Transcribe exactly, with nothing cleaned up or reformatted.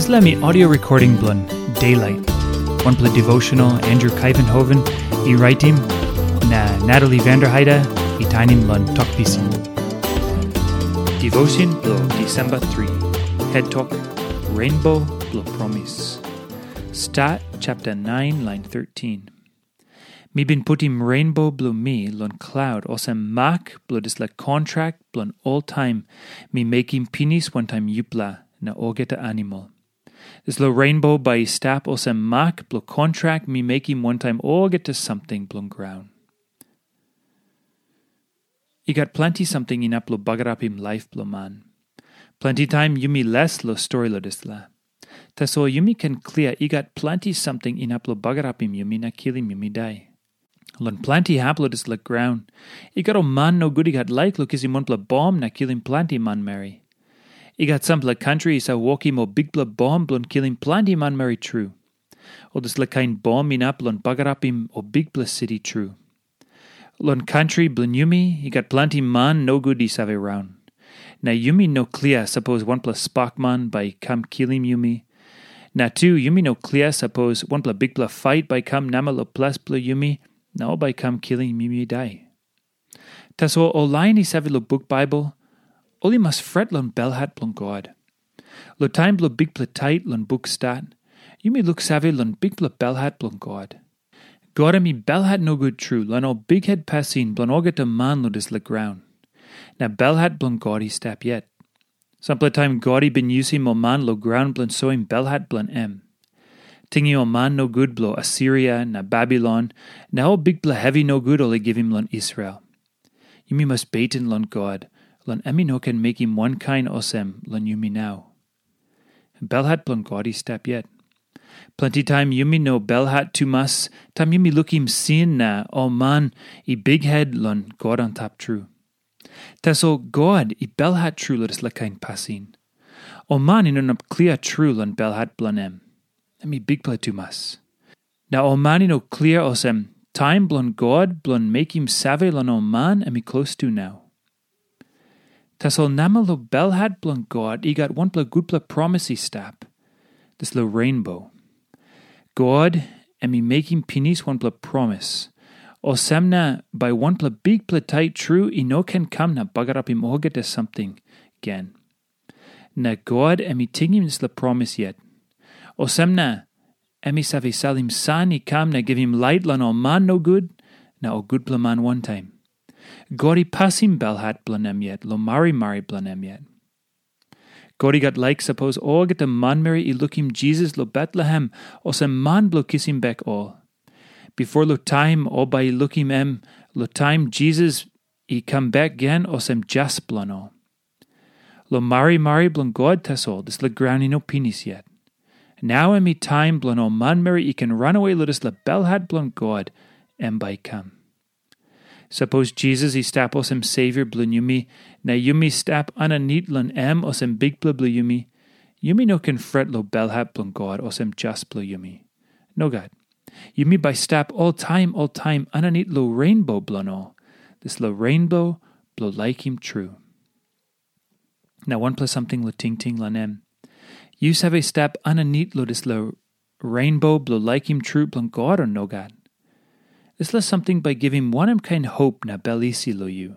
Dispela mi audio recording bilong Daylight, wanpela devotional Andrew Kaivenhoven i raitim, na Natalie Vanderheide i tainim long Tok Pisin. Devotion bilong Disemba tri, head tok, Rainbow bilong Promis. Stat chapter nine, line thirteen. Mi bin putim rainbow bilong mi long klaut olsem mak bilong dispela kontrak bilong oltaim mi mekim pinis wantaim yupela na olgeta animal. Dispela rainbow bai i stap olsem mak bilong kontrak mi mekim wantaim olgeta samting bilong graun. I gat planti samting inap long bagarapim laip bilong man. Planti taim yumi les long stori long dispela. Tasol yumi ken klia i gat planti samting inap long bagarapim yumi na kilim yumi dai. Long planti hap long dispela graun, i gat ol man nogut i gat laik long kisim wanpela bom na kilim planti manmeri. I gat sampela kantri i save wokim ol bikpela bom bilong kilim planti manmeri tru. Ol dispela kain bom inap long bagarapim ol bikpela siti tru. Long kantri bilong yumi, i gat planti man nogut i save raun. Na yumi no klia sapos wanpela spakman bai i kam kilim yumi. Na tu yumi no klia sapos wanpela bikpela fait bai i kam namel long ples bilong yumi, na ol bai i kam kilim yumi dai. Tasol ol lain i save long buk Baibel, ol i mas fret long belhat bilong God. Long taim bilong bikpela tait long buk Stat, yumi luksave long bikpela belhat bilong God. God em i belhat nogut tru long ol bikhet pasin bilong olgeta man long dispela graun. Na belhat bilong God i stap yet. Sampela taim God i bin yusim ol man long graun bilong soim belhat bilong em. Tingim ol man nogut bilong Asiria na Babilon, na ol bikpela hevi nogut ol i givim long Israel. Yumi mas beten long God, long em i no ken mekim wankain olsem long yumi nau. Belhat bilong God i stap yet. Planti taim yumi no belhat tumas, taim yumi lukim sin na ol man i bikhet long God antap tru. Tasol God i belhat tru long dispela kain pasin. Ol man i no inap klia tru long belhat bilong em. Em i bikpela tumas. Na ol man i no klia olsem, taim bilong God bilong mekim save long ol man em i klostu nau. Tasol namel long belhat bilong God i gat wanpela gutpela promis i stap. Dispela rainbow. God em i mekim pinis wanpela promis. Olsem na bai wanpela bikpela tait tru i no ken kam na bagarapim olgeta samting gen. Na God em i tingim dispela promis yet. Olsem na em i save salim san i kam na givim lait long ol man nogut na ol gutpela man wantaim. God i pasim belhat bilong em yet long marimari bilong em yet. God i gat laik sapos olgeta manmeri i lukim Jisas long Betlehem olsem man bilong kisim bek ol. Bipo long taim ol bai i lukim em long taim Jisas i kam bek gen olsem jas bilong ol. Long marimari bilong God tasol dispela graun i no pinis yet. Nau em i taim bilong ol manmeri i ken ranawe long dispela belhat bilong God em bai i kam. Sapos Jisas i stap olsem Savior bilong yumi, na yumi stap aninit long em olsem Bikpela bilong yumi, yumi no ken fret long belhat bilong God olsem jas bilong yumi. Nogat. Yumi bai stap oltaim oltaim aninit long rainbow bilong ol, dispela rainbow bilong laikim tru. Na wanpela samting long tingting long em. Yu save stap aninit long dispela rainbow bilong laikim tru bilong God o nogat? Dispela samting bai givim wanem kain hop na bel isi long yu?